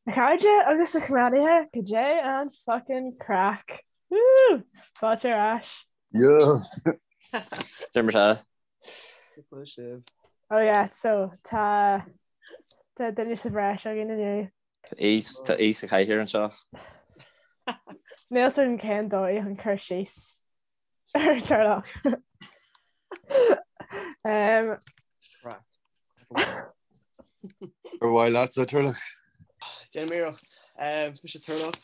A chairde agus a chomrádaithe, cad é an fucking craic? Woo! Fáilte ar ais. Yes! Deir mar sea. Cúpla sibh. Oh yeah, so tá tá duine sa bhreis againn inniu. Tá aoi sa chathaoir anseo. Níl a fhios agam cén dóigh chun cur síos ar Turlough. Um, Craic. Ar mhaith leatsa Turlough? Déanaim iarracht. Um, is mise Turlough.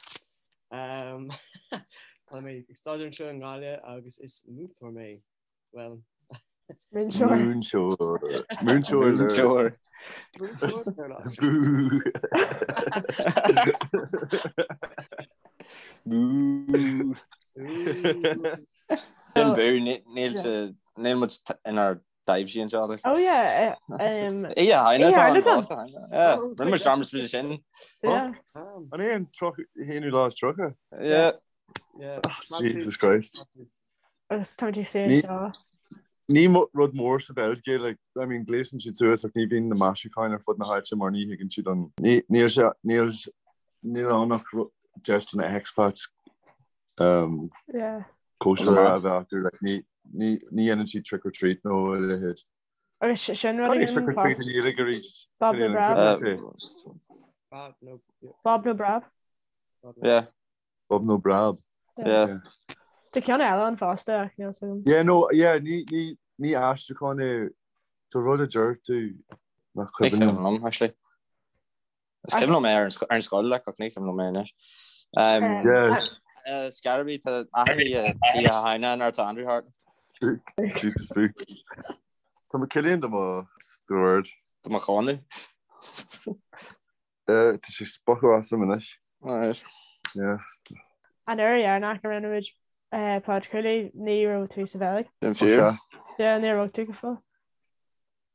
Um, tá mé ag staidéar anseo i nGaillimh agus is múinteoir mé. Well, Múinteoir. Múinteoir. Múinteoir. Múinteoir. múinteoir Turlough. Bú. Bú. Sin bú, níl sa níl muid inár dtaibhsí anseo. like. Oh yeah, eh, um, Oíche Shamhna Oíche tá an Shamhna tá. fosta, yeah. Rinne muid dearmad faoi sin. yeah. Um, An é an 31ú? Yeah. yeah. Jesus Christ. Agus tá muid ag suí Ní- anseo. Ní rud mór sa Bheilg é, like, I mean, gléasann siad suas ach ní bhíonn na maisiúcháin ar fud na háite mar ní thuigeann siad an ní níl sé níl níl ann ach deis do na expats um, Yeah. cóisir a bheith acu, like, ní ní ní dhéanann siad trick or treat nó a leithéid. Agus sin rud Cad é againn trick or treat fós. i nGaeilge arís? Bob Cad é nó an Brab. cuimhin leat é? Bob nó yeah, Bob nó Brab. Bob nó Yeah. Bob nó Brab. Yeah. Tá ceann eile ann fosta ach níl a fhios agam. Yeah, no, yeah, ní ní ní aistriúchán é tá rud a deir tú nach Ní cuimhin cuimhin liom. liom, actually. Is cuimhin liom é ar an sco- ar an scoil like, ach ní cuimhin liom é anois. Um, Yeah. uh, Scaraby tá achan oíche Oíche Shamhna nuair atá Andrew thart. Spook, spook, spook. Tá mo Cillian do mo stiúir. Do mo cháineadh. Tá sé spochadh asam anois. Alright. Yeah. An uair dheireanach a rinne muid podchraoladh ní raibh tú sa Bheilg. Sin fíor. Yeah, níor bhog tú go fóill.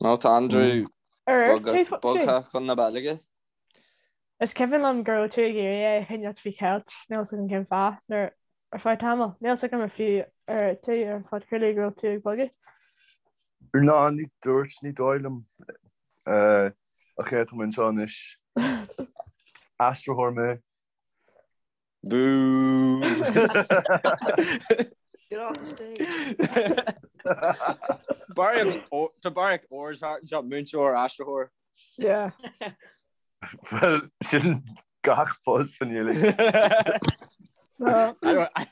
No, tá Andrew Ar bhog tú fós? bogtha chun na Beilge. Is cuimhin liom go raibh tú ag iarraidh é a choinneáil faoi cheilt, níl 'fhios agam cén fáth, nuair ar feadh tamaill. Níl 'fhios agam ar fiú ar dúirt tú ar an phodchraoladh go raibh tú ag bogadh. Ná, ní dúirt, ní dóigh liom. Ach yeah, tá mé anseo anois. Aistritheoir mé. Bú! Get off the stage! Tá barraíocht órs thart anseo, múinteoir, aistritheoir. Yeah. Bhuel, sin gach post san uilig. No. I don't, I,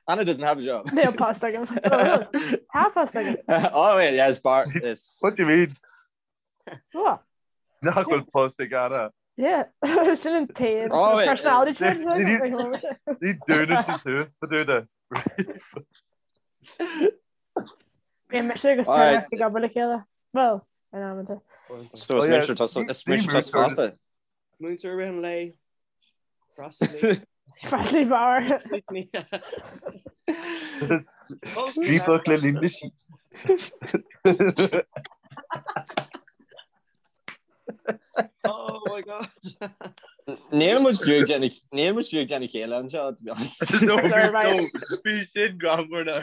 Anna doesn't have a job. Níl post agam. Tá post agam. Oh wait, yeah, it's bar. It's What do you mean? What? Nach bhfuil post ag Anna. Yeah, sin an taobh Oh, wait, personality trait. Ní dúnann sí suas do dúna. Bíonn mise agus Alright. Turlough ag obair le chéile. Well, in amanta. So is Oh, yeah. múinteoir tusa is múinteoir tusa fosta. Múinteoir rith an lae. Freastalaí. Freastalaí beáir. Striapach le linn na sí. Oh my god. Níl muid fiú ag déanamh níl muid fiú ag déanamh céille anseo, to be honest. No, Sorry, right. no, bhí sin greannmhar now.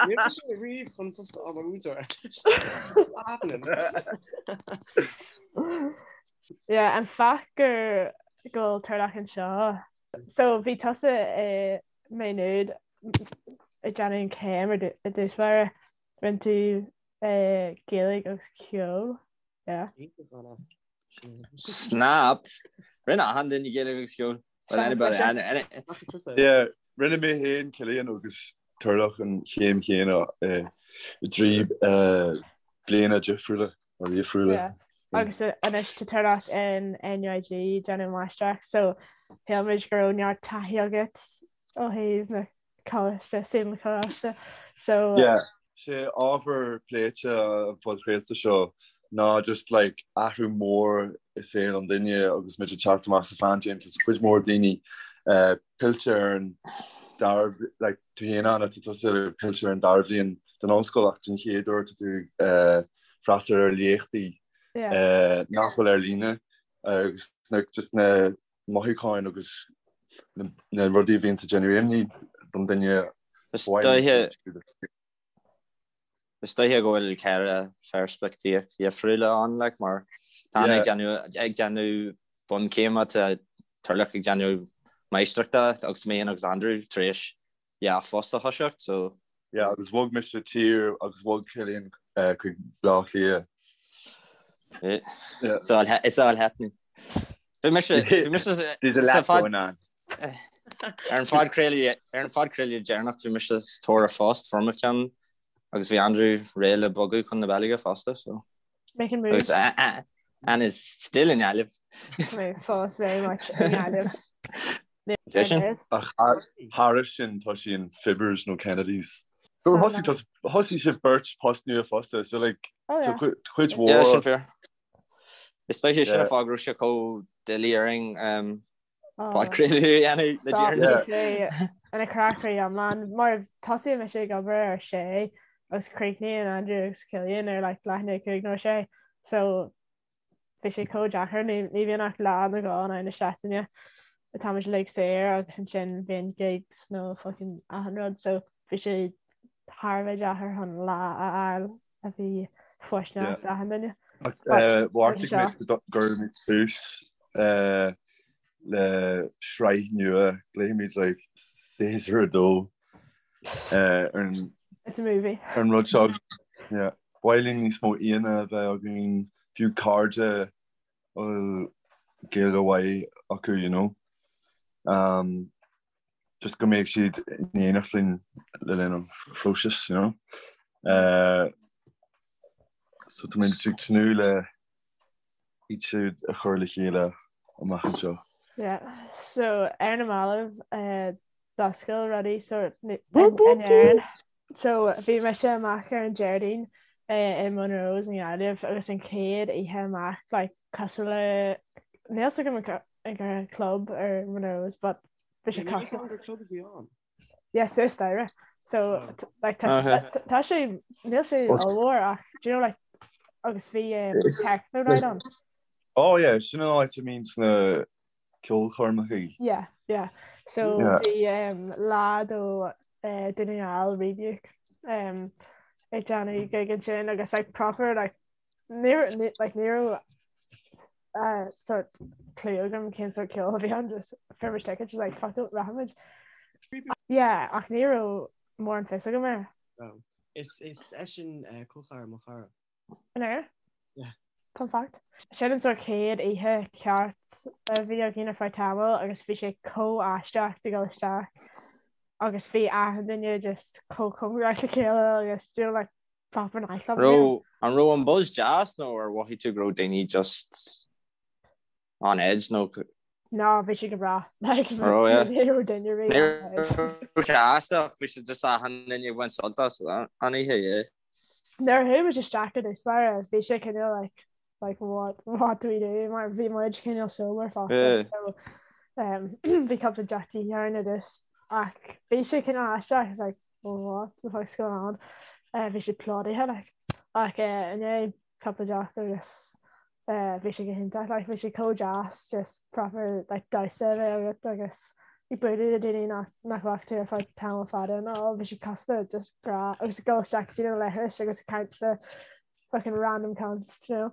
Níl sé riamh chun post a fháil mar mhúinteoir. What's happening? Yeah, an fáth gur go bhfuil Turlough anseo. So bhí tusa i Maigh Nuad ag déanamh an chéim ar i dtús báire. Rinne tú Gaeilge agus ceol. Yeah. Snap! Rinne achan duine Gaeilge agus ceol. Well, anybody, any, any... Yeah, rinne mé féin Cillian agus Turlough an chéim chéanna i dtrí bliana difriúla or dhifriúla. Yeah. Agus anois tá Turlough in NUIG ag déanamh máistreacht, so shíl muid go raibh neart taithí agat ó thaobh na coláiste, saol na coláiste. So Yeah. Sé ábhar pléite an phodchraolta seo ná just like athrú mór i saol an duine agus muid ag teacht amach sa phaindéim tá cuid mhór daoine eh, pillte ar an dara like tú féin Anna tá tusa pillte ar an dara bhliain den ollscoil ach den chéad uair tá tú eh, freastal ar léachtaí yeah. eh, nach bhfuil ar líne agus na, just na mothúcháin agus na rudaí a bhíonn ag déanamh imní don duine. Is dóiche is dóiche go bhfuil ceithre pheirspictíocht dhifriúla ann like mar. Tá Anna ag déanamh bunchéime, tá Turlough ag déanamh máistreachta agus mé agus Andrew tar éis yeah post a thoiseacht so. Yeah agus bhog mise tír agus bhog Cillian chuig Bleá Cliath. Yeah. It's all it's all happening. Bhí mise bhí mise There's a lot going on. Ar an phodchraoladh ar an phodchraoladh deireanach bhí mise sa tóir ar phost fuair mé ceann agus bhí Andrew réidh le bogadh chun na Beilge fosta so. Making moves. Agus Anna is still in Gaillimh. Mé fós very much in Gaillimh. Ach thairis sin tá sí in Fibbers nó Kennedy's. So thosaigh thosaigh sibh beirt post nua fosta so like Oh yeah. tá cuid mhór. Yeah, sin fíor. Is dóiche sin an fáth go raibh sé chomh doiligh orainn um, podchraoladh a dhéanamh le deireanas. Stop ina chrá iomlán mar tosaíonn mise ag obair ar sé agus críochnaíonn Andrew agus Cillian ar like leath i ndiaidh 5 nó 6 so bhí sé chomh deacair ní ní bhíonn ach lá nó dhó in aghaidh na seachtaine atáimid uilig saor agus ansin bíonn gigs nó fucking achan rud so bhí sé thar a bheith deacair chun lá a fháil a bhí fóirsteanach d'achan duine. Bheartaigh muid go gcuirfimid tús le sraith nua, glaofaimid like séasúr 2 ar an It's a movie. ar an rud seo. Yeah. Ba mhaith linn níos mó aíonna a bheith againn, fiú cairde a bhfuil Gaeilge mhaith acu, you know. Um, just go mbeidh siad in éineacht linn le linn an phróisis, you know. Uh, so tá muid ag tnúth le iad siúd a chur le chéile amach anseo. Yeah, so ar na mallaibh uh, d'oscail rudaí sort in Éirinn. So bhí mise amach ar an Déardaoin uh, i Monroe's i nGaillimh agus an chéad oíche amach like, cosúil le níl a fhios agam an gur club ar Monroe's but bhí sé cosúil gur club a bhí ann. Yeah, suas staighre. So like tá tá sé níl sé ollmhór ach do you know like agus bhí um, techno night ann. Oh yeah, sin an áit a mbíonn sna ceolchoirmeacha. Yeah, yeah. So Yeah. bhí um, lad ó uh, Dún na nGall Rebuke um, ag déanamh gig ansin agus like proper like Ní like ní raibh uh, sort clue agam cén sort ceol a bhí ann just fuair muid tickets like fuck it rachaimid. Yeah, ach ní raibh mórán fios agam air. Oh. Is is eisean uh, col ceathrar mo chara. An ea? Yeah. Fun fact. Sin an sort chéad oíche ceart a bhí againn ar feadh tamaill agus bhí sé chomh aisteach de dhul isteach agus bhí achan duine just chomh cóngarach le chéile agus you know, like proper nightclub. Raibh an raibh an buzz deas nó ar mhothaigh tú go raibh daoine just on edge nó No, bhí sé go breá. Like, Raibh, yeah. ní raibh duine rí Ní on edge. raibh sé aisteach, bhí sé just achan duine ag baint sult as an oíche, yeah. Nuair a chuaigh muid isteach i dtús báire, bhí sé cineál like, like what, what do we do? Mar bhí muid cineál sober fosta. Yeah. So, um, bhí cúpla deoch de dhíth orainn i dtús. Ach bhí sé cineál aisteach, it's like, what the fuck's going on? Uh, bhí sé plódaithe like. Ach uh, i ndiaidh cúpla deoch agus uh, bhí sé go hiontach like, bhí sé chomh deas just proper like, damhsa a bheith agat agus ag bualadh le daoine nach, nach bhfaca tú ar feadh tamall fada nó bhí sé cosúil le just grá agus ag dul isteach go dtí na leithris agus ag caint le fucking random cunts, you know.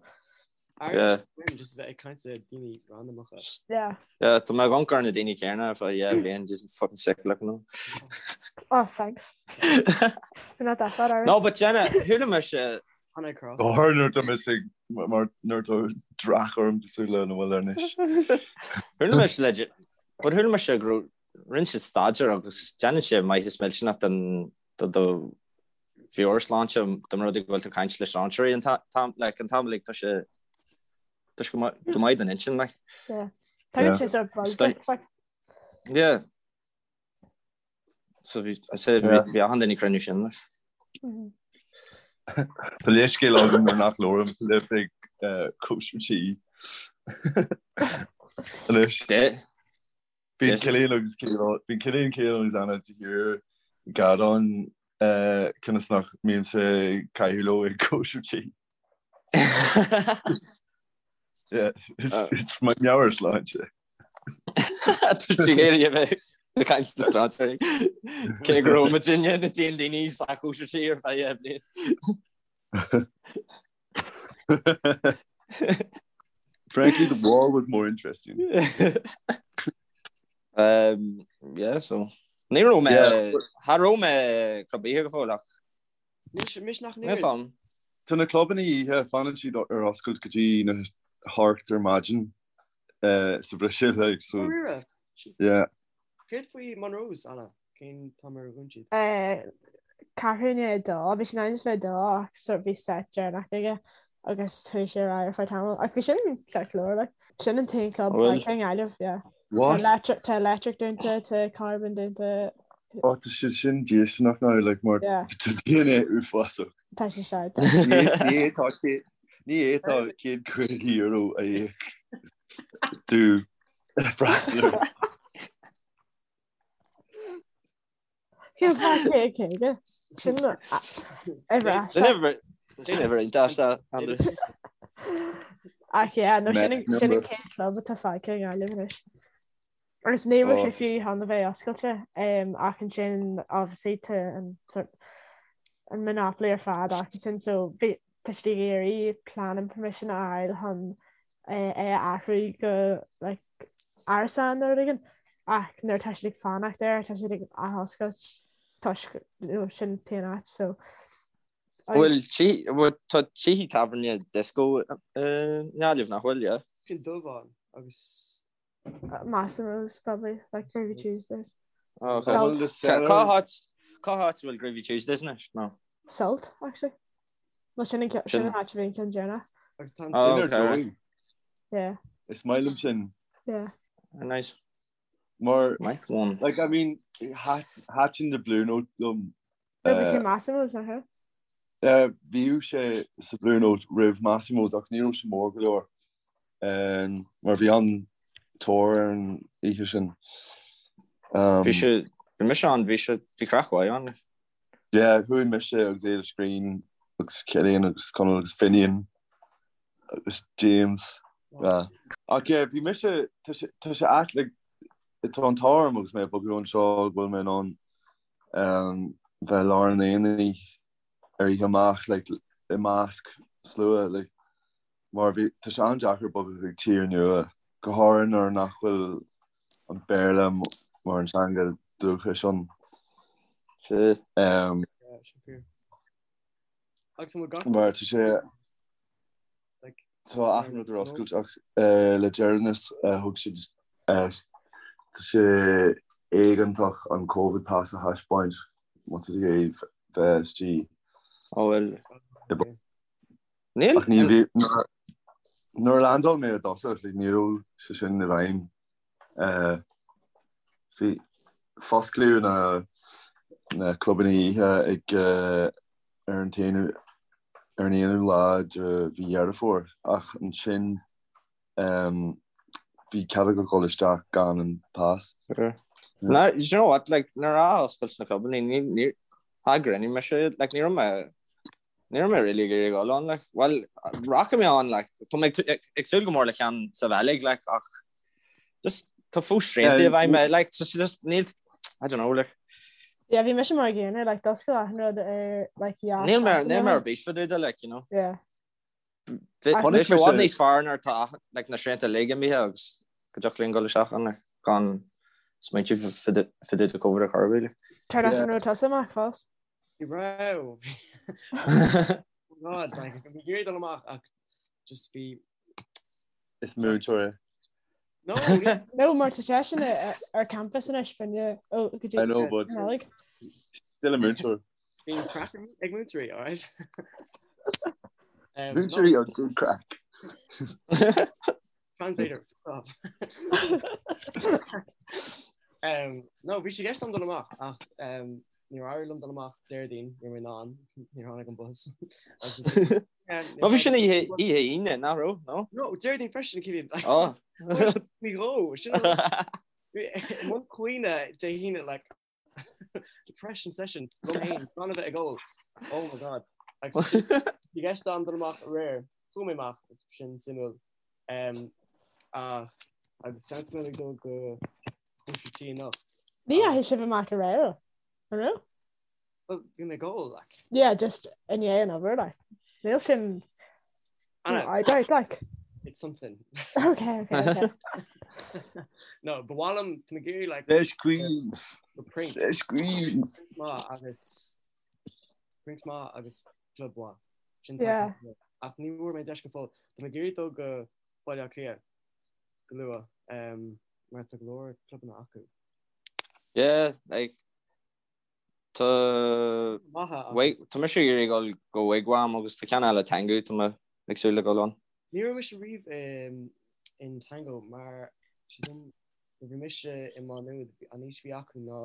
Yeah. Just bheith ag caint le daoine randamacha. Yeah. Yeah, tá mé ag amharc ar na daoine céanna ar feadh 2 bhliain, just fucking sick looking them. Oh, thanks. We're not that bad, are we? No, but Jenna, chuala mise Hannah Cross. Go háirithe nuair atá mise ag mar nuair atá dreach orm cosúil lena bhfuil anois. Chuala mise le but chuala mise go raibh rinne siad staidéar agus déanann sé maitheas millteanach don do do mheabhairshláinte dá mba rud é go bhfuil tú ag caint le strainséirí an t-am like an t-am like tá sé tá sé go maith go maith don intinn like. Yeah. Tagann sé sort buzz duit, like. Yeah. So bhí I said Yeah. bhí achan duine ag cruinniú sin like. Mhm. Tá leithscéal agam nuair nach labhraím libh ag cóisir tí. Anois. De Bíonn Cillian agus Bíonn Cillian Cillian agus Anna de shíor ag gearán conas nach mbímse ag caitheamh leo ag cóisir tí. It's my meabhairshláinte. Tá tú ag iarraidh a bheith ag caint le strainséirí. Cé go raibh muidinne na d'aon daoine sa chóisir tí ar feadh 2 bhliain. Frankly, the wall was more interesting. Um, yeah, so. Ní raibh mé cha raibh mé club oíche go fóill ach. Mis nach ní. An. Tá na clubanna oíche fanann siad ar oscailt go dtí na hocht ar maidin sa Bhruiséil like, so. Yeah. Céard faoi Monroe's, Anna? Cén t-am ar dhún siad? Ceathrú i ndiaidh a dó, bhí sé in ainm is bheith a dó ach sort bhí set deireanach aige agus chuaigh sé ar aghaidh ar feadh tamaill. Ach bhí sin ceart go leor, like. Sin an t-aon club fágtha i nGaillimh, yeah. What? Tá Electric, tá Electric dúnta, tá Carbon dúnta. Oh, tá sé sin déistineach now, like, mar Yeah. tá daoine uafásach. Tá sé seo. Ní fhéadfá ní fhéadfá €150 a íoc do freastal. Cén fáth 150? Sin uimhir aisteach. Sin uimhir iontach, Andrew. Ach yeah, no sin an sin an chéad club atá fágtha i nGaillimh anois. Agus ní raibh sé fiú chun a bheith oscailte ach ansin obviously tá an sort an monopoly ar fad acu so bhí tá siad ag iarraidh planning permission a fháil chun é a athrú go like árasán nó rud éigin ach nuair atá siad ag fanacht air tá siad ag athoscailt toisc you know, sin an t-aon áit so Bhfuil tí bhfuil tá tithe tábhairne disco i nGaillimh nach bhfuil, yeah? Sin Dubhán agus Massimo's probably like Groovy Tuesdays. Oh, okay. Bhfuil the cellar Cá háit cá háit a bhfuil Groovy Tuesdays anois? No. Sult actually. Well sin an sin Sin an áit a bhí an ceann deireanach. Agus tá an Oh, sin ar okay. dóigh. Yeah. Is maith liom sin. Yeah. Nice. Mar Nice one. like I mean thaitin the Blue Note liom. No, bhí sé Massimo's nach ea? Bhíodh sé sa Blue Note roimh Massimo's ach ní raibh sé mór go leor mar bhí an-tóir ar an oíche sin. Bhí sé bhí mise ann bhí sé bhí craic mhaith ann. Yeah, chuaigh mise agus Éilis Green agus Cillian agus Conall agus Finian agus James. Yeah. Ach yeah, bhí mise tá sé tá sé ait like tá an t-ádh orm agus mé ag bogadh anseo go bhfuil mé in ann bheith i lár an aonaigh ar oíche amach like i measc slua like mar bhí tá sé an-deacair bogadh chuig tír nua go háirithe nuair nach bhfuil an Béarla mar an teanga dúchais ann. Sea. Um, Agus an bhfuil gach mar tá sé like Tá achan rud ar oscailt ach le deireanas thug siad tá sé éigeantach an Covid pass a thaispeáint má tá tú ag iarraidh bheith istigh. Ó bhuel. Ach ní bhí nuair a landáil mé i dtosach like ní raibh sé sin i bhfeidhm. Bhí fosclaíodh na na clubanna oíche ag ar an t-aonú ar an aonú lá de mhí Dheireadh Fómhair ach ansin bhí cead agat dhul isteach gan an pas. No, you know what, like, nuair a oscailt na clubanna, ní, ní, ghrinigh mise, like, ní raibh mé, ní raibh mé really ag iarraidh dul ann, like, well, rachaidh mé ann, like, tá mé ag, ag súil go mór le ceann sa Bheilg, like, ach Just tá fós srianta i bhfeidhm, like, so just níl, I don't know, like. Yeah, bhí mise mar an gcéanna, like, d'oscail achan rud ar, like, yeah. Níl mé, níl mé ar bís fá dtaobh de, like, you know. Yeah. Bhí sé i bhfad níos fearr nuair atá, like, na srianta uilig imithe agus go dtiocfadh linn dul isteach ann, like, gan smaointiú fá dtaobh de Covid ar chor ar bith, like. Tarlach an raibh tusa amach fós? Ní raibh. God, like, bhí ag iarraidh dul amach ach just bhí Is múinteoir é. No, No, mar tá seisean ar campus anois finne ó go dtí I know, but Nollaig. still a múinteoir. Bíonn craic ag múinteoirí, alright? Um, Múinteoirí are good craic. Translator, fuck off. Um, no, bhí sé i gceist agam dul amach ach um, níor éirigh liom dul amach Déardaoin, ní raibh mé in ann, níor tháinig an bus. No bhí sin oíche Aoine, nach raibh, no? No, Déardaoin freisin, Cillian. Oh. Ní dhó, sin i mbun caoineadh Dé hAoine, like, depression session, liom féin, gan a bheith ag ól. Oh my God. Agus bhí i gceist agam dul amach aréir, chuaigh mé amach, sin suimiúil. Um, ach, agus seans go mbeidh mé ag dul go cóisir tí anocht. Ní dheachaigh sibh amach aréir, an raibh? Well, bhí mé ag ól, like. Yeah, just i ndiaidh an obair, like. Níl sin Anna. I doubt, like. It's something. Okay, okay, okay. No, ba mhaith liom tá mé ag iarraidh like Sesh Queen. go Prinx Sesh Queen. maith agus Prinx maith agus club mhaith. Sin Yeah. tá ach ní bhfuair mé deis go fóill. Tá mé ag iarraidh dul go Baile Átha Cliath go luath um, mar tá go leor clubanna acu. Yeah, like Tá Tá mise ag iarraidh dul go Wigwam agus tá ceann eile Tango tá mé ag súil le dul ann. Ní raibh mise riamh in Tango mar sílim nuair bhí mise i Má Nuad an aois a bhí acu ná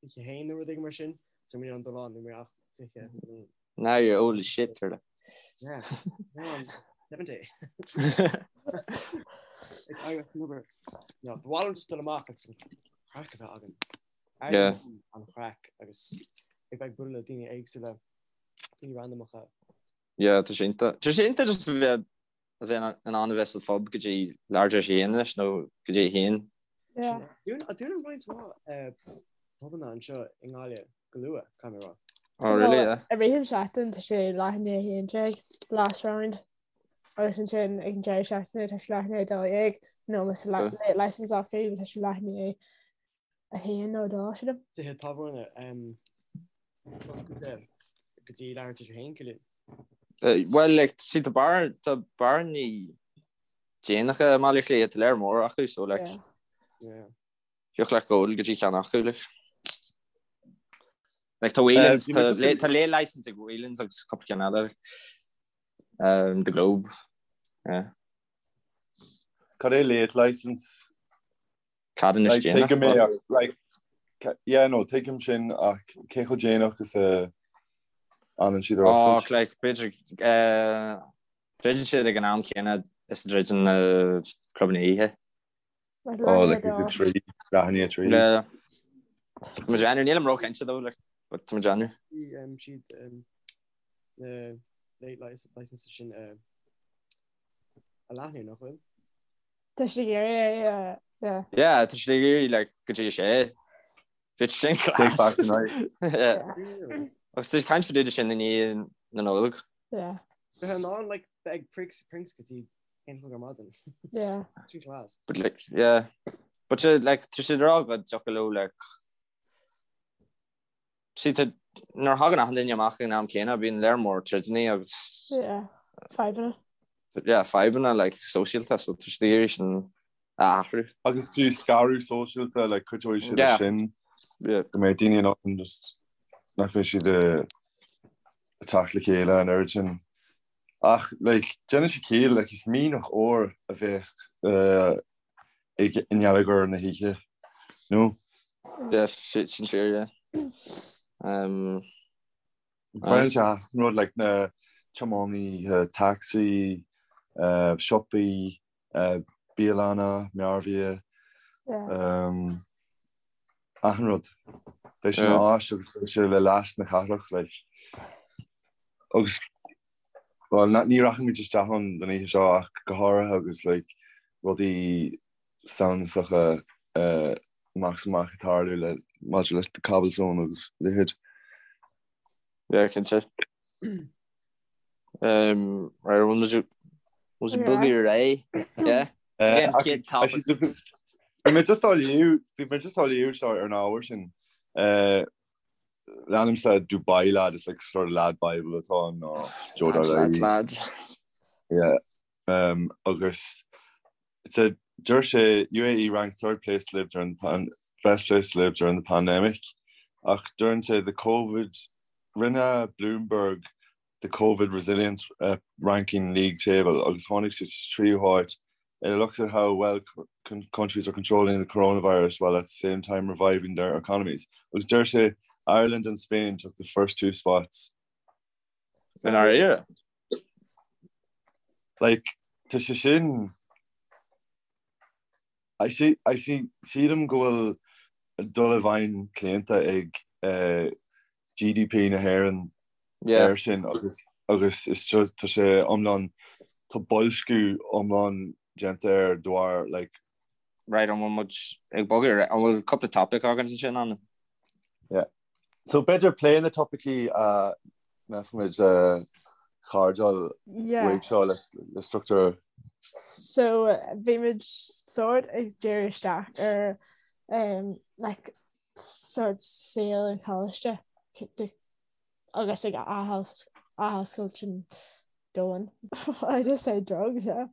21 nó rud éigin mar sin so ní raibh mé in ann dul ann ní raibh mé ach 20 bliain. Now you're old as shit, Turtle. Yeah, now I'm 70. Like, I remember, no, ba mhaith liom just dul amach agus an craic a bheith againn. Yeah. An chraic agus ag bheith ag bualadh le daoine éagsúla, daoine randamacha. Yeah, tá sé iontach. Tá sé iontach just a bheith a bheith in ann a bheith sa phub go dtí leathuair tar éis a haon anois nó go dtí a haon. Yeah. Dúnann roinnt mhaith pubanna anseo i nGaillimh go luath, caithfidh mé a rá. Oh really, yeah. I rith an seachtain tá sé leath i ndiaidh 11, last round. Agus ansin ag an deireadh seachtaine tá sé leath i ndiaidh 12 nó más late license acu tá sé leath i ndiaidh 1 nó 2, sílim. Tithe tábhairne oscailte go dtí leathuair tar éis a haon, Cillian. Bhuel, like, see, tá bar, tá bearannaí déanacha i mBaile Átha Cliath, tá lear mór acu, so, like, Yeah. thiocfadh leat gabháil go dtí ceann acu, like. Like, tá Whelan's, Bhí mé tá just late, ag- tá late license ag Whelan's agus cúpla ceann eile, like. Um, the Globe, yeah. Cad é late license? Ceadúnas Like, déanach. tuigim é ach, like, yeah, no, tuigim sin ach cé chomh déanach is a fhanann siad ar Ó, oscailt? like, b'fhéidir, eh, druideann siad ag an am céanna is a druideann na clubanna oíche. Like, Oh, leath like, i ndiaidh a dó. trí, leath i ndiaidh a trí. Yeah. Tá mé ag déanamh, nílim róchinnte though, like, but tá mé ag déanamh. Bhí um, siad um, na late licenses sin uh, a leathnú, nach bhfuil? Tá siad ag iarraidh é, yeah. Yeah, tá siad ag iarraidh like go dtí a sé. Bhí sin Take back class. the night. Yeah. Agus tá caint fá dtaobh de sin i ndiaidh na Nollag. Yeah. Bheith in ann like bheith ag Prinx Prinx go dtí aon chlog ar maidin. Yeah. Sin class. But like, yeah. But uh, like, tá siad ag rá go dtiocfadh leo like See, tá, nuair a thagann achan duine amach ag an am céanna, bíonn lear mór troideanna agus Yeah, fadhbanna. yeah, fadhbanna like sóisialta, so tá siad ag iarraidh sin a athrú. Agus fiú scaradh sóisialta, like cuideoidh siad Yeah. leis sin Yeah. go mbeidh daoine in ann just nach mbeidh siad ag teacht le chéile an oiread sin. Ach like déanann sé ciall, like is mianach óir a bheadh eh, i ngeilleagar na hoíche, nó? Yeah, sin fíor, yeah. Um, Baineann sé achan rud like na tiománaithe tacsaí, uh, siopaí, uh, bialanna, mearbhia, Yeah. um, achan rud. Beidh sé Yeah. ina áis agus beidh sé le leas na cathrach, like. Agus Bhuel, ní rachaimid isteach ann don oíche seo ach go háirithe agus like rudaí samhnasacha amach is amach ag tarlú le maidir leis na cobblestones agus a leithéid. Yeah, cinnte. Um, right, bhfuil muid muid ag bogadh ar aghaidh? Yeah. Cén chéad topic? Bhí mé just á léamh, bhí mé just á léamh seo ar an ábhar sin. Leanaimse Dubai Lad, is like sort of lad bible atá ann nó Joe Lads, lads, lads. Yeah. Um, agus so deir sé UAE ranked third place to live during the pan best place to live during the pandemic. Ach deireann sé the COVID rinne Bloomberg the COVID resilience uh, ranking league table agus tháinig siad sa tríú háit It looks at how well countries are controlling the coronavirus while at the same time reviving their economies. Agus deir sé Ireland and Spain took the first two spots. In our era. Like, tá sé sin I see, I see, sílim go bhfuil dul i bhfeidhm claonta ag eh, GDP na hÉireann Yeah. air sin agus agus is seo tá sé iomlán tá boilsciú iomlán déanta air de bharr like Right, an bhfuil muid ag bogadh ar an bhfuil cúpla topic againn ansin ann? Yeah. So b'fhéidir plé na topaicí a mbeifimid a chardáil Yeah. uaidh seo le le struchtúr. So bhí muid sort ag díriú isteach ar um, like, sort saol an choláiste agus ag athoscailt an domhain. I just say drugs, yeah.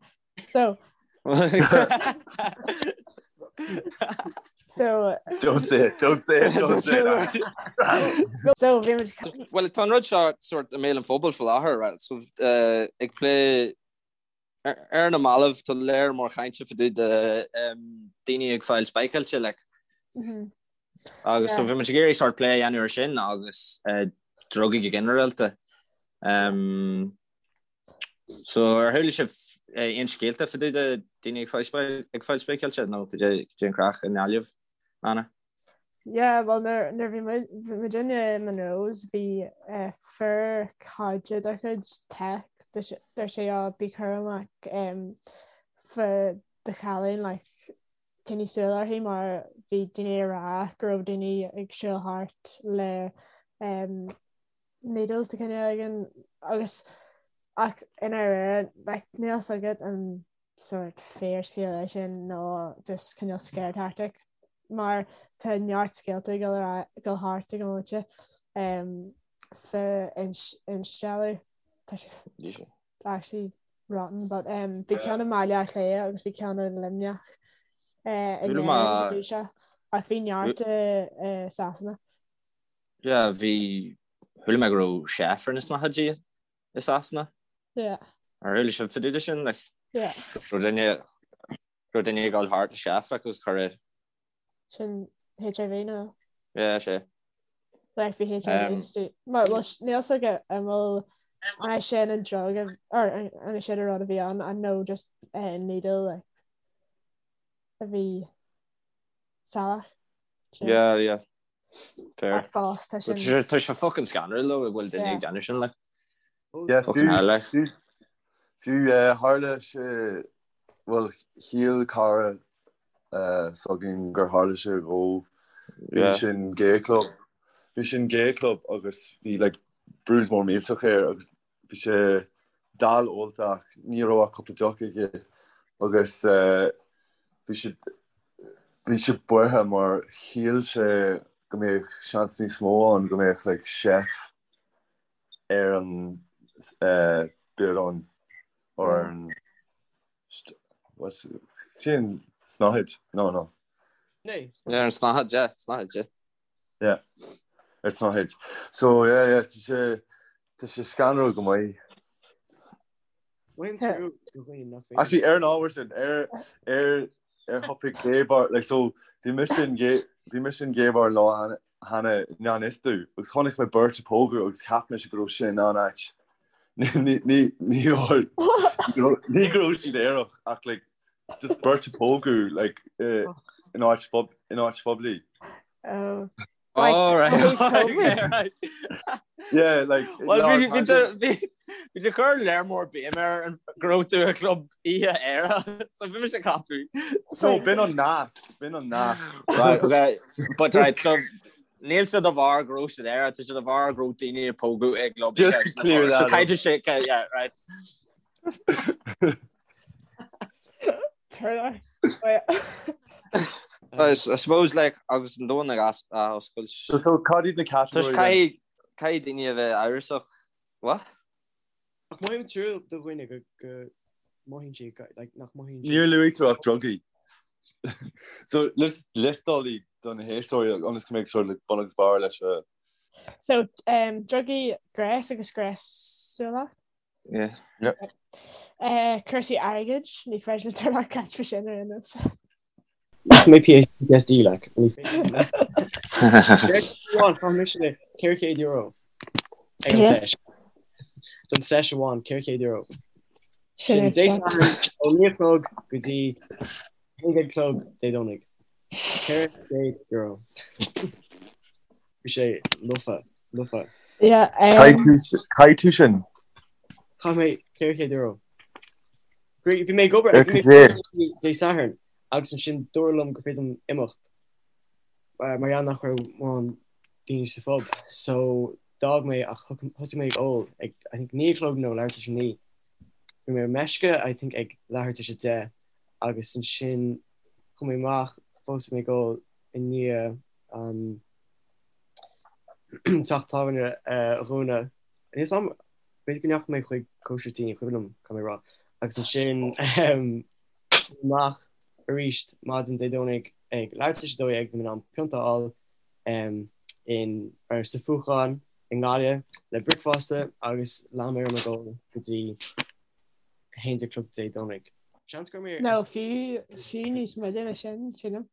So So Don't say it, don't say it, don't say it. So bhí muid Well tá an rud seo sort i mbéal an phobail faoi láthair, right? So uh, ag plé ar na mallaibh tá léar mór cainte fá dtaobh de daoine ag fáil spáicáilte like. Agus so bhí muid ag iarraidh sort plé a dhéanamh ar sin agus drugaí go ginearálta. So ar chuala sibh aon scéalta fá dtaobh de daoine ag fáil spáicáilte nó cad é an craic i nGaillimh, Anna? Yeah, well nuair nuair bhí muid bhí muidinne i Monroe's bhí eh, fear caide dár chuid tech dúirt sé á bí cúramach em, fá do chailín like coinnigh súil uirthi mar bhí daoine ag rá go raibh daoine ag siúl thart le em, needles de chineál éigin agus ach i ndáiríre like níl fhios agat an sort fíorscéal é sin nó just cineál scare tactic mar tá neart scéalta ag dul ar dul thart ag an bhomaite um, fá instealladh tá sé actually rotten but um, bhí ceann i mBaile Átha Cliath agus bhí ceann i Luimneach uh, in Chuala mé- Éirinn go dtí seo ach bhí neart i i Sasana. Yeah, bhí chuala mé go raibh chef ar na snáthaidí i Sasana. Yeah. Ar chuala sibh fá dtaobh de sin, like? Yeah. Raibh duine, raibh duine ag dul thart le chef, like, agus cuireadh. Sin HIV nó? Yeah, sé. Like, bhí HIV um, istigh. Mar, well, níl fhios agat an bhfuil an é sin an drug a, or an an é sin an rud a bhí ann, an nó just uh, needle, like, a bhí salach. Yeah, yeah. Fair. Ach fós, tá sin. Tá sé fucking scanrúil though, go bhfuil duine ag déanamh sin, like. Yeah, Fucking hell, like. fiú, fiú, eh, tharla sé, bhuel, shíl cara eh, s'againn gur tharla sé dhó. Bhí Yeah. sé in gay club. Bhí sé in gay club agus bhí like bruise mór millteach air agus bhí sé dall ólta ach ní raibh ach cúpla deoch aige agus bhí sé bhí sé buartha mar shíl sé go mbeadh seans níos mó ann go mbeadh like chef ar an biorán or ar an what's sin snáthaid no no Ar an snáthaid, yeah, snáthaid, yeah. Yeah, ar an tsnáthaid. So yeah, yeah, tá sé tá sé scanrúil go maith. Bhain trú do dhaoine nach féidir. Actually, ar an ábhar sin, ar ar ar topic gay bar, like so bhí mise in gay bhí mise in gay bar lá cheana cheana i ngan fhios domh agus chonaic mé beirt ag pógadh agus cheap mise go raibh sin an áit. Ní ní ní ní ní go raibh siad aerach ach like Just beirt ag pógadh like in áit in áit phoiblí. Oh. Oh, right. Okay, right. Yeah, like Well, bhí bhí bhí bhí tú ag cur léar mór béim ar an go raibh tú i gclub oíche aerach, so bhí mise ag ceapadh. No, b'in an nasc, b'in an nasc. Right, okay. But right, so níl sé de bharr go raibh siad aerach, tá sé de bharr go raibh daoine ag pógadh i gclub Just to clear So that up. caithfidh sé, yeah, right. Turn I suppose like agus an domhan ag athoscailt. So so cad iad na categories? Caithfidh caithfidh daoine a bheith amhrasach. What? Ach mothaím trua do dhaoine go go mothaíonn siad go like nach mothaíonn siad. Níor luaigh tú ach drugaí. So let's liostáil iad do na héisteoirí ionas go mbeidh sort of bun agus barr leis a. So um, drugaí gnéas agus gnéasúlacht. Yeah. Eh, cúrsaí airgid, ní féidir le Turlock caint faoi sin ar aon nós. Mé PTSD like. Ní féidir le. Amháin, chaith mise €400 ag an seis. Don seis amháin, €400. Sin Sin Dé Sathairn ó 9 a chlog go dtí 11 a chlog Dé Domhnaigh. €400. Bhí sé lofa, lofa. Yeah, um, Chaith tú sin? Chaith mé €400. Bhí mé ag obair Ar bhí mé cad é? Dé Sathairn agus ansin dúradh liom gur féidir liom imeacht mar gheall nach raibh mórán daoine sa phub. So d'fhág mé ach thosaigh mé ag ól ag I think 9 a chlog nó leathuair tar éis a 9. Bhí mé ar meisce I think ag leathuair tar éis 10 agus ansin chuaigh mé amach fós bhí mé ag ól i ndiaidh an teach tábhairne a dhúnadh. Níl a fhios agam b'fhéidir go ndeachaigh mé chuig cóisir tí ní cuimhin liom caithfidh mé a rá agus ansin amach arís maidin Dé Domhnaigh ag leathuair tar éis 12 bhí mé in ann pionta a fháil in ar sa Phuchán i nGaillimh le bricfeasta agus lean mé orm ag ól go dtí 11 a chlog Dé Domhnaigh. Seans go raibh mé ar. Nó fiú fiú níos moille ná sin, sílim.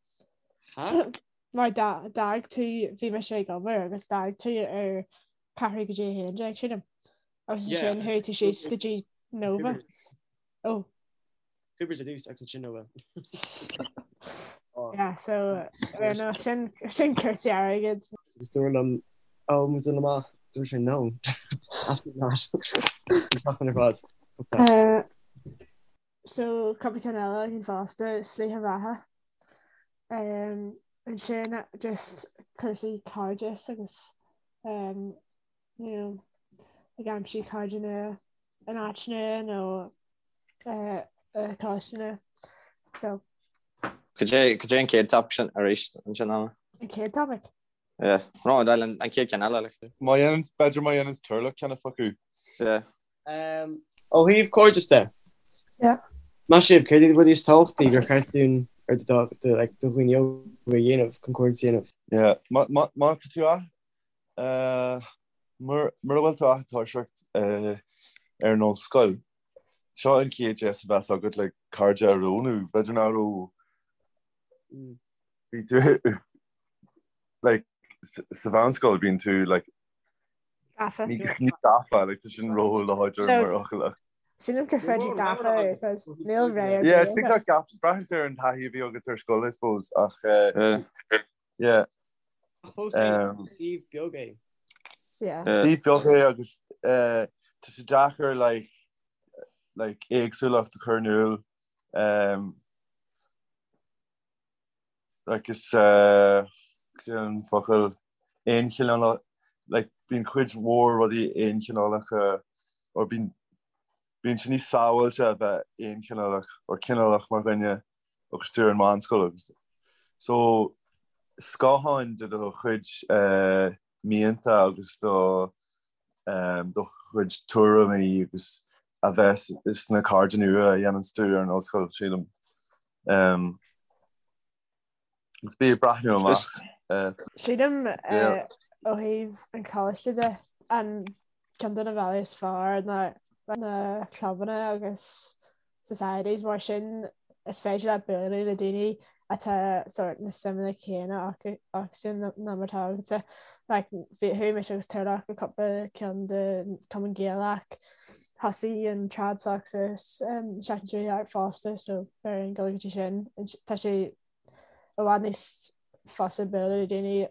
Ha? Mar d'fhág tú, bhí mise ag obair agus d'fhág tú ar ceathrú go dtí 11, sílim. Agus ansin chuaigh tú síos go dtí Nova. Ó. Fibers ar dtús agus ansin Nova. Yeah, so ar no, sin sin cúrsaí airgid. Agus dúradh liom ó muid dul amach, dúirt sé no. Absolutely not. An tseachtain ar fad. Fuck that. Uh, so cúpla ceann eile againn fosta, slite bheatha. Um, ansin just cúrsaí cairdeas agus um, you know, ag aimsiú cairde nua in áit nua nó coláiste nua. So. Cad é cad é an chéad topic sin arís ansin Anna? An chéad topic? Yeah. No, an chéad ceann eile. Like. Má dhéanann b'fhéidir má dhéanann Turlough ceann a phacú. Yeah. Um, ó thaobh cairdeas de. Yeah. Meas sibh, céard iad na rudaí is tábhachtaí gur cheart dúinn ar do do like do dhaoine óga a dhéanamh chun cairdeas a dhéanamh? Yeah. Má má má tá tú a Mura bhfuil tú ach ag toiseacht ar an ollscoil, seo an chéad deis a bheas agat le cairde a roghnú. B'fhéidir nach raibh bhí tú like sa mheánscoil bíonn tú like Gafa. Ní ní gafa like tá sin ró-láidir mar fhocal ach. Sílim gur féidir gafa a úsáid. Níl ré ar Yeah, bith. TikTok gafa braitheann sé ar an taithí a bhí agat ar scoil I suppose ach yeah. Ach fós féin, is suíomh beag é. Yeah. Suíomh beag é agus tá sé deacair like like éagsúlacht a chur in iúl. Um, like is uh, an focal aonchineálach like bíonn cuid mhór rudaí aonchineálacha or bíonn bíonn sé níos sábháilte a bheith aonchineálach or cineálach mar dhuine agus tú ar an meánscoil agus so scáthán de do chuid mianta agus do do chuid tuairimí agus a bheas sna cairde nua a dhéananns tú ar an ollscoil sílim. Agus bí ag breathnú amach. Sílim ó thaobh an choláiste de an ceann de na bealaí is fearr ná na clubanna agus societies mar sin is féidir leat bualadh le daoine atá sort na suimeanna céanna acu sin ná mar atá agatsa. Like bhí chuaigh mise agus Turlough go cúpla ceann de Cumann Gaelach, thosaigh an Trad Soc sa seachtain seo thart fosta so beidh orainn dul go dtí sin. Tá sé i bhfad níos fusa bualadh le daoine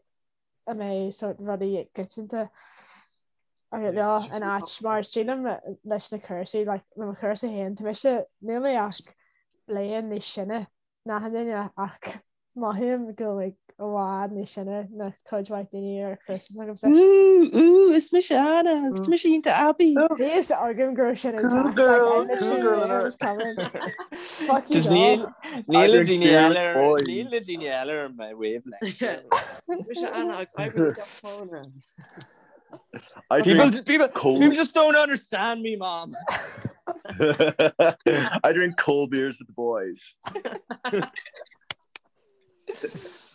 a mbeidh sort rudaí coitianta agat leo in áit mar sílim leis na cúrsaí like le mo chúrsa féin tá mise níl mé ach bliain níos sine ná achan duine ach mothaím go bhfuil i bhfad níos sine ná cuid mhaith daoine ar chúrsa s'agamsa. Ooh, ooh, is mise Anna, agus tá mise iontach aibí. Bhí fhios agam go raibh sin ag Cool teacht, like, girl, I cool literally girl knew it alert. was coming. Fuck you Just all. níl níl I na drink daoine beer eile with ar boys. níl na daoine eile ar my wavelength. Mise Anna agus oibrím i dteach tábhairne. I People drink people cold people just don't understand me, mom. I drink cold beers with the boys.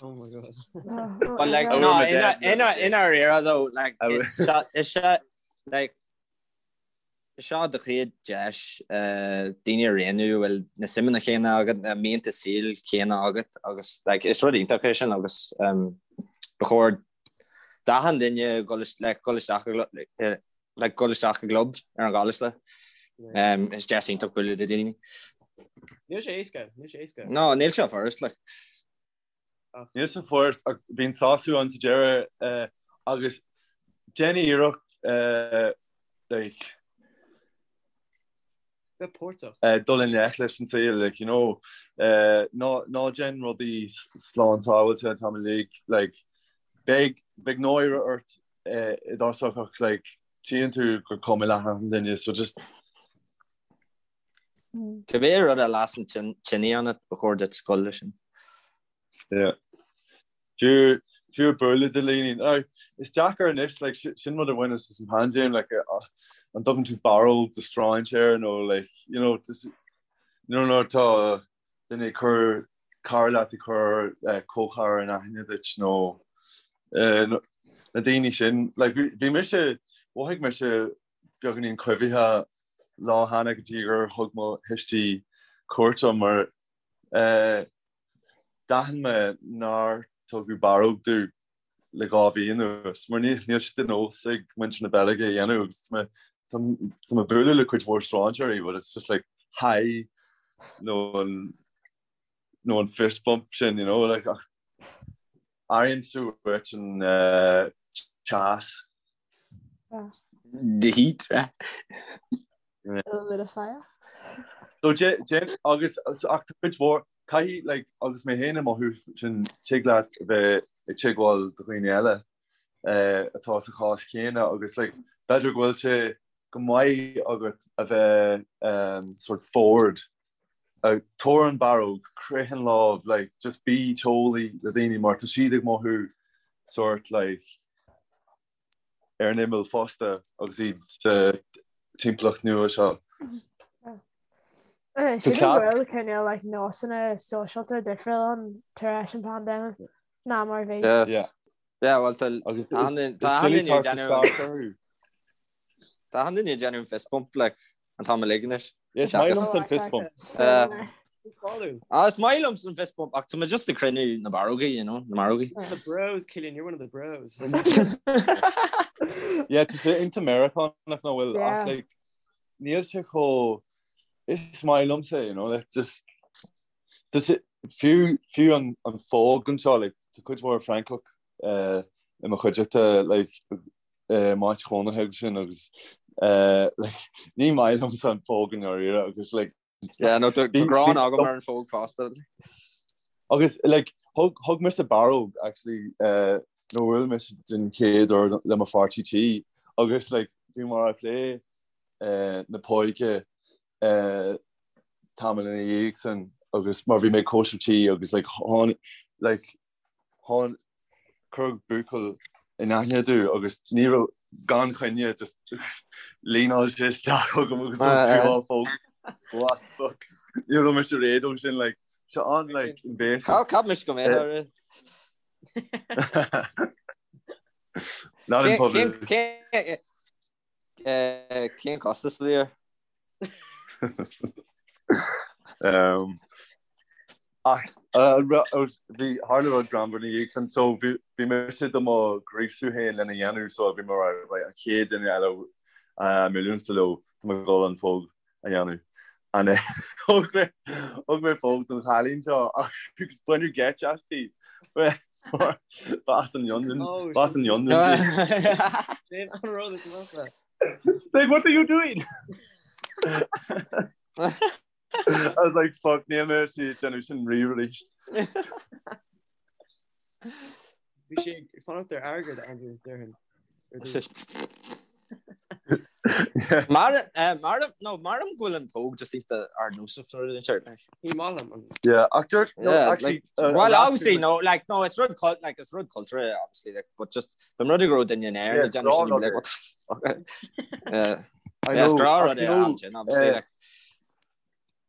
Oh my god. Oh, But like I no, wear my in dad's in leather in our era though, like I is seo is seo like Seo do chéad deis daoine a roghnú a bhfuil na suimeanna céanna agat, na mianta saoil céanna agat agus like is rud iontach é sin agus ba chóir d'achan duine dul like dul isteach i like dul isteach i gclub ar an gcoláiste. Is deis iontach bualadh le daoine. Níl sé éasca, níl sé éasca. No, níl sé furast like. Níl sé furast ach bíonn sásamh ann sa deireadh agus déan iarracht like bheith páirteach. dul i ngleic leis an saol like you know ná ná déan rudaí slán sábháilte an t-am uilig like beidh beidh náire ort i dtosach ach like tchíonn tú gur cuma le achan duine so just. Cibé rud a lasann tine ionat, ba chóir duit scoil leis sin. Yeah. Fiú fiú bualadh de dhaoine. Now, is deacair anois, like, sin rud a bhaineas as an paindéim, like, an dtugann tú barróg do strainséir nó, like, you know, just, you know, nuair atá duine ag cur cara leat ag cur comhchara in aithne duit nó na daoine sin, like, bhí mise, mhothaigh mise beagáinín coimhthíoch lá cheana go dtí gur thug mo thuistí cuairt orm mar D'aithin mé nár tugadh barróg domh le 2 mhí anuas, mar níl sé de nós ag muintir na Beilge a dhéanamh agus tá mé tá mé ag bualadh le cuid mhór strainséirí but it's just like hi nó an nó an fist bump sin, you know, like ach airíonn tú uait an teas. The heat, right? A little bit of fire. So déan agus ach tá cuid mhór caithfidh like agus mé féin ag mothú sin tig leat a bheith ag teagmháil do dhaoine eile atá sa chás céanna agus like b'fhéidir go bhfuil sé go maith agat a bheith sort forward tabhair an barróg, croith an lámh, like just bí teolaí le daoine mar tá siad ag mothú sort like ar an imeall fosta agus iad sa timpeallacht nua seo. Sílim go bhfuil cineál like nósanna sóisialta difriúil ann tar éis an pandemic ná mar bhí. Yeah. Yeah, well, tá Tá an duine ag déanamh fist bump like an t-am uilig anois. Is maith liomsa an fist bump. Ah, is maith liomsa an fist bump ach tá mé just ag cruinniú na barrógaí, you know, na marógaí. The bros, Killian, you're one of the bros. Yeah, tá sé iontach Meiriceánach nach bhfuil ach like níl sé chomh is maith liomsa, you know, like just just fiú fiú an an phóg anseo like tá cuid mhór Francach eh, i mo chuideachta like m'áit chónaithe agus sin agus ní maith liomsa an phóg i ndáiríre agus like Yeah, no, tá gráin agam ar an phóg fosta. Agus like thug thug mise barróg actually nuair a bhuail mise den chéad uair le mo pháirtí tí agus like bhí muid ag plé na póige tamall ina dhiaidh sin agus mar bhí mé ag cóisir tí agus like tháinig like Tháinig, cuireadh buachaill in aithne domh agus ní raibh, gan choinne, just líneáil sé isteach chugam agus thug tú á phóg. What the fuck? Ní raibh mise réidh dó sin, like, sé an, like, invasive. Cheap mise go mbeadh air. Not in public. Cén costas a bhí air? Ach bhí tharla rud greannmhar ina dhiaidh sin so bhí mise do mo ghríosú féin lena dhéanamh so bhí mé right an chéad duine eile a mbuailfidh mé leo tá mé ag dul an phóg a dhéanamh. And thug mé thug mé póg don chailín seo agus baineadh geit aisti. Ba as an Fhionlainn ba as an Fhionlainn di. Sin an rud is measa. Like, what are you doing? I was like, fuck, níl mé ag déanamh sin riamh arís. Bhí sé ag fanacht ar airgead, Andrew, déarfainn. Ar dtús. Mar mar no mar go bhfuil an póg just iontach ardnósach nó rud inteacht like. Ní maith liom an. Yeah, ach dúirt no, Yeah, actually, like, well, obviously, no, like, no, it's rud cult, like, it's rud culture, obviously, like, but just, the rud go raibh duine in Éirinn, Yeah, ag déanamh sin, you'd be like, what the fuck? Yeah. I Yeah, it's know, grá ach rud you é, know, ansin, obviously, like.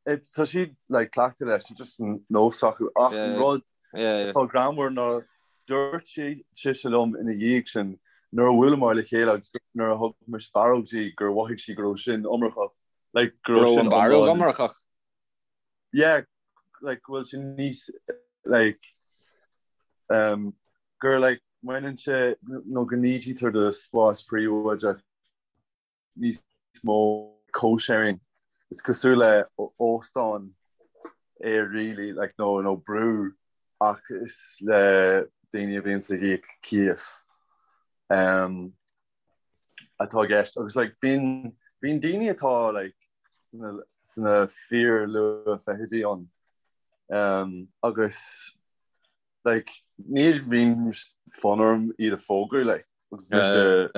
Tá siad like cleachta leis, it's just nós acu ach an rud atá greannmhar ná dúirt sise liom ina dhiaidh sin nuair a bhuaileamar le chéile agus nuair a thug mise barróg di gur mhothaigh sí go raibh sin iomarcach like go raibh sin an barróg iomarcach? Yeah, like go bhfuil sin níos like um, gur like mbaineann sé nó go n-ídítear do spás príobháideach. níos mó co-sharing. Is cosúil le óstán é really, like nó nó brú ach is le daoine a bhíonns ag íoc cíos um, atá i gceist. Agus like bíonn bíonn daoine atá like sna sna fíor luath-fhichidí ann um, agus like ní bhíonn fonn orm iad a phógadh like agus mise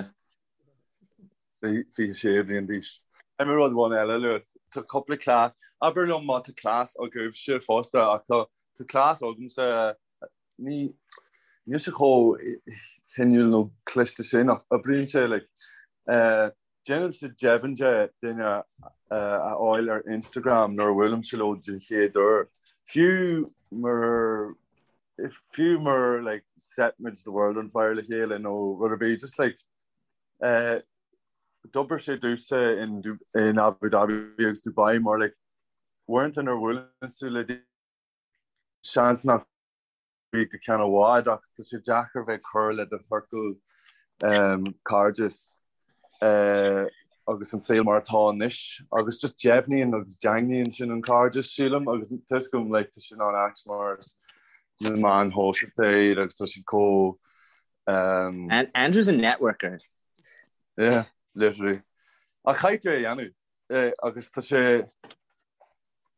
26 bliain d'aois. Caithfidh mé rud amháin eile a lua. Tá cúpla cleas, abair liom má tá cleas agaibhse fosta ach tá tá cleas agamsa ní níl sé chomh hinniúil nó cliste sin ach oibríonn sé like déanaimse deimhin de duine a fháil ar Instagram nuair a bhuailimse leo den chéad uair fiú mar fiú mura like set muid the world on fire le chéile nó rud ar bith just like eh D'oibir sé domhsa in Abu Dhabi agus Dubai mar like uaireanta nuair a bhuaileann tú le daoine seans nach go ceann i bhfad ach tá sé deacair bheith ag cur le do chiorcal cairdis agus an saol mar atá anois agus just deimhníonn agus daingníonn sin an cairdeas sílim agus tá 'fhios agam like tá sin an-ait mar is na meáin shóisialta iad agus tá siad chomh Andrew's a networker. Yeah, literally. Ach caithfidh tú é a dhéanamh agus tá sé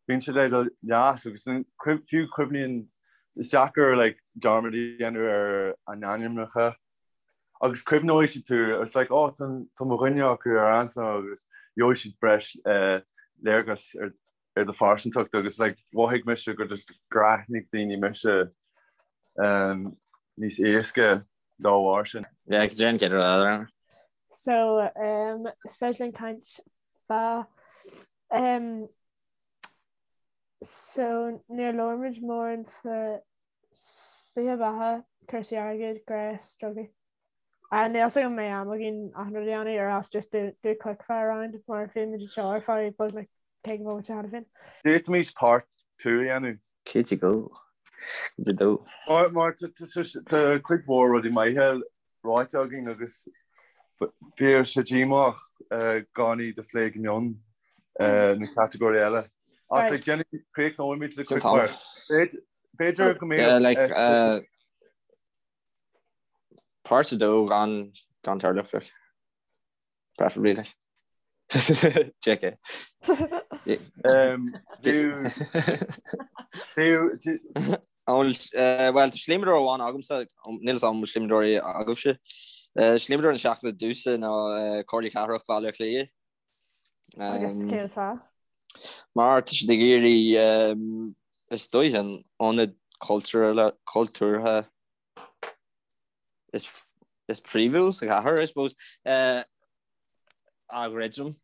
bíonn sé le do leas agus fiú cuimhníonn is deacair like dearmad a dhéanamh ar a n-ainmneacha agus cuimhneoidh siad tú it's like oh tá tá mo dhuine acu ar ansa agus gheobhaidh siad breis léargas ar ar do phearsantacht agus like mhothaigh mise gur just gur aithnigh daoine mise um, níos éasca dá bharr sin. Yeah, cad é an rud eile? So um, is féidir linn caint fá um, so níor labhair muid mórán fá slite beatha, cúrsaí airgid, gnéas, drugaí. Níl fhios agam an mbeidh am againn achan rud a dhéanamh or else just do do quick fire round mar bhí muid anseo ar feadh beagnach 50 bomaite cheana féin. D'fhéadfaimis part 2 a dhéanamh. Cinnte go. Cinnte dó. Mar mar tá cuid mhór rudaí maithe ráite againn agus bheadh sé díomách gan iad a phlé go mion na catagóirí eile. Ach like déanfaidh críochnóimid le quick fire. B'fhéidir go mbeadh Páirt 2 gan gan Turlach like. Preferably like. JK. Bhuel, tá slíomadóir amháin agamsa, níl 'fhios agam an bhfuil slíomadóirí agaibhse. Slíomadóir na seachtaine domhsa ná Comhairle Cathrach Bhaile Átha Cliath. Agus cén fáth? Mar tá siad ag iarraidh is dóigh an ionad cultúrtha is is príomhúil sa chathair, I suppose, a dhruidim.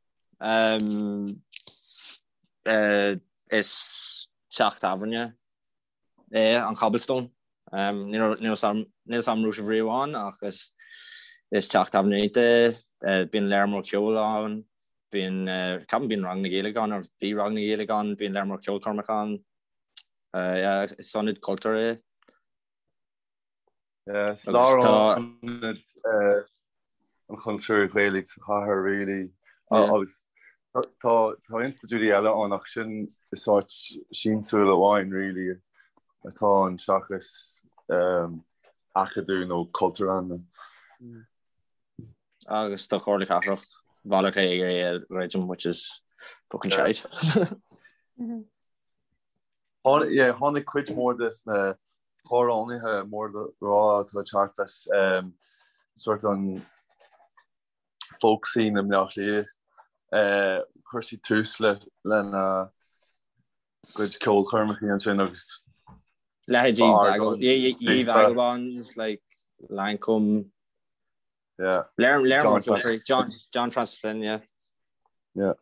Is teach tábhairne é an Cobblestone. Níl 'fhios agam an raibh sibh riamh ann ach is teach tábhairne iontach é. Bíonn léar mór ceoil ann, bíonn, ceapaim bíonn ranganna Gaeilge ann, or bhí ranganna Gaeilge ann, bíonn léar mór ceolchoirmeacha ann. Is ionad cultúir é. Is lárionad an chultúir Ghaelaigh sa chathair really agus tá institiúidí eile ann ach sin is áit siamsúil amháin really atá ann seachas acadamh nó cultúrlann. Agus tá Comhairle Cathrach Bhaile Átha Cliath ag iarraidh é a dhruidim which is fucking shite. Tháinig cuid mhór de na hamhránaithe mór le rá atá ag teacht as sort an folk scene i mBleá Cliath. Chuir siad tús le lena gcuid ceolchoirmeacha ansin agus Leithéidí Ye Vagabonds, like Lankum. Yeah. Léir John John Francis Flynn, yeah. Yeah.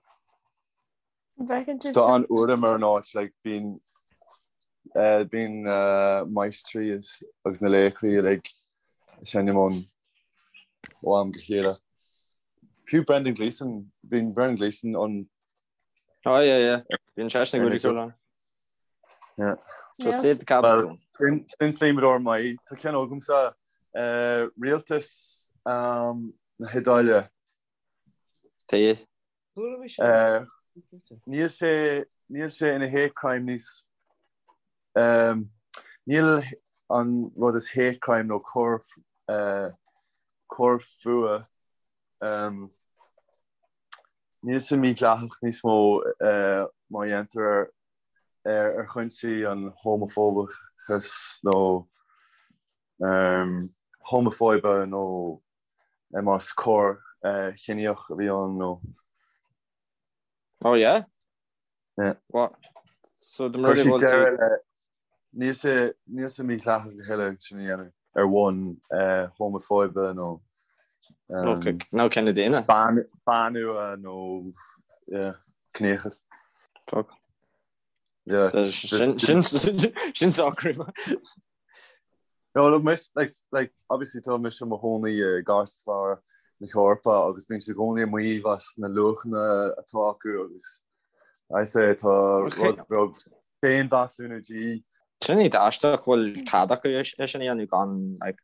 Tá an-urraim ar an áit like bíonn bíonn maistrí agus na laochraí uilig ag seinm ann ó am go chéile. Fiú Brendan Gleeson, bíonn Brendan Gleeson ann. Oh yeah yeah. Bíonn seisean ag goil ann. Yeah. So save the Cobblestone. Sin slíomadóir maith. Tá ceann agamsa rialtas na hIodáile. Tá. Níl sé níl sé ina hate crime níos níl an rud is hate crime nó coir coir fuath níl sé mídhleathach níos mó má dhéantar ar ar chúinsí an homafóbachas nó homafóibe nó más coir chiníoch a bhí ann nó. Oh yeah? Yeah. What? So the murder bhfuil tú Níl sé níl sé mídhleathach a thuilleadh sin a dhéanamh ar bhonn homafóibe nó nó cine daonna. Banfhuath nó ciníochas. Fuck. Sin socrú. No, look, mise, like, like, obviously tá mise i mo chónaí i gcairtlár na hEorpa agus bíonn siad i gcónaí ag maíomh as na luachanna atá acu agus I say tá rud beag féinmheasúnú de dhíth. Sin iad aisteach go bhfuil cead acu é sin a dhéanamh gan like,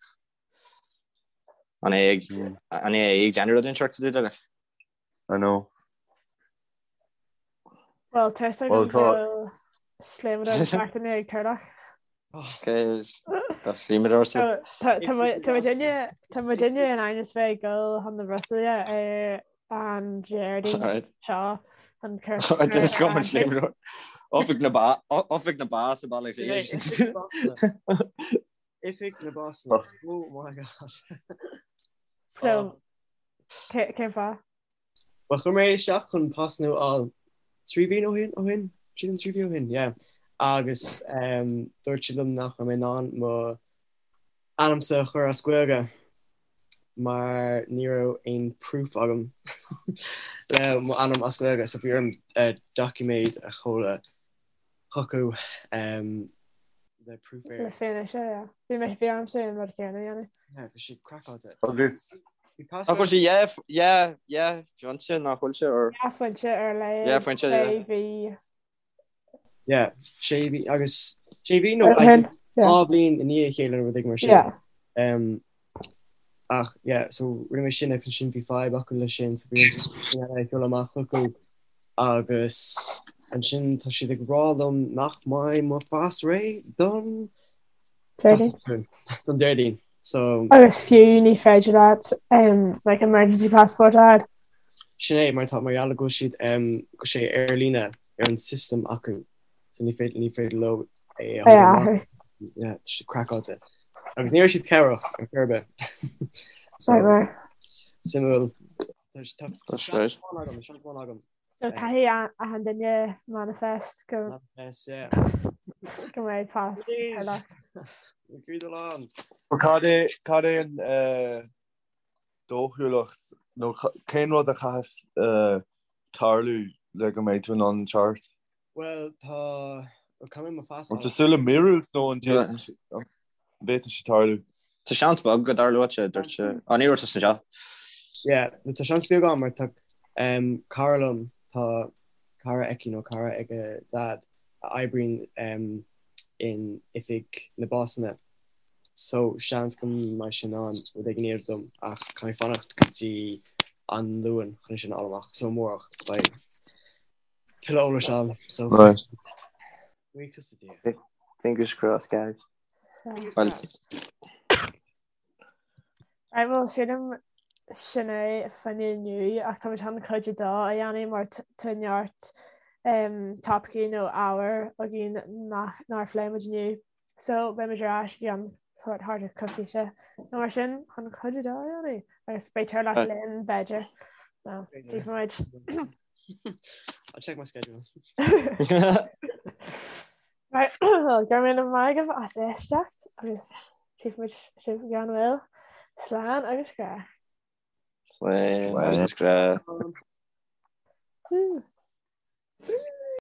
an é ag an é ag déanamh rud inteacht sa dúiche. I know. Well, tá sé go bhfuil sléibhteoir seachtaine ag Turlock. Tá sléibhteoir sa. Tá muidinne in ainm is bheith ag dul chun na Brusaile ar an Déardaoin seo an cur. Oifig na ba Oifig na ba sa baile. Oifig na bpasanna. Oh my god. So cén fáth? Well chuir mé isteach chun pas nua a fháil 3 mhí ó shin, ó shin? Sílim 3 mhí ó shin, yeah. Agus um, dúirt siad liom nach raibh mé in ann mo ainmsa a chur as Gaeilge mar ní raibh aon proof agam le mo ainm as Gaeilge, so bhí orm uh, doiciméad a sheoladh chucu um, le proof ar. Le fianaise, yeah. Bhí mé bhí ormsa an rud céanna a dhéanamh. Yeah, bhí sé craiceáilte. Agus Bhí pas Nach bhfuil sé dhá dhá dhá phointe nach bhfuil sé ar Dhá phointe ar a laghad. Dhá phointe, yeah. Sé mhí. Yeah, sé mhí agus sé mhí nó Ó shin, yeah. dhá bhliain i ndiaidh a chéile nó rud éigin mar sin. Yeah. Um, ach yeah, so rinne mé sin agus ansin bhí fadhb acu leis sin, so bhí orm sin eile a sheoladh amach chucu agus ansin tá siad ag rá liom nach mbeidh mo phas réidh don Déardaoin. don Déardaoin. So Agus fiú ní féidir leat um, like emergency passport a fháil. sin é mar tá mar gheall go bhfuil siad um, go sé ar líne ar an system acu. So ní féidir ní féidir leo é a athrú. Yeah, tá sé craiceáilte. Agus ní raibh siad cabhrach ar chor ar bith. So, Nightmare. Suimiúil. Tá tá That's right. seans amháin agam, seans amháin agam. So caithfidh achan duine manifest go Manifest, yeah. go mbeidh pas Please. Turlock. Agreed along. Cad é cad é an eh, dóchúlacht nó cén rud a chaithfeas eh, tarlú le go mbeidh tú in ann teacht? Bhuel, tá, bhuel, caithfidh mé mo phas An tú súil le míorúilt nó an bhféadfadh sé tarlú? Tá seans beag go dtarlóidh sé, dúirt sé. Á, ní raibh tusa anseo. Yeah, nó tá seans beag ann mar tá um, cara liom, tá cara aici nó cara ag a dad a oibríonn um, in oifig na bpasanna. So seans go mbeidh sé in ann rud éigin a dhéanamh dom ach caithfidh mé fanacht go dtí an Luan chun é sin a fháil amach. So amárach beidh tuilleadh eolais ann. So Right. buíochas le Dia. Fingers crossed, guys. Yeah. Well, Right, well, sílim sin é fá choinne inniu ach táimid chun cuid a dó a dhéanamh mar tá neart um, topaicí nó ábhair againn nach nár phléigh muid inniu. So beidh muid ar ais i gceann sórt thart ar coicíse nó mar sin chun cuid a dó a dhéanamh agus beidh Turlock linn b'fhéidir. No, B'fhéidir. muid. I'll check my schedule. Right, well, go raibh míle maith agaibh as éisteacht agus tchífidh muid sibh i gceann tamaill. Slán agus grá. Slán agus grá. Woo.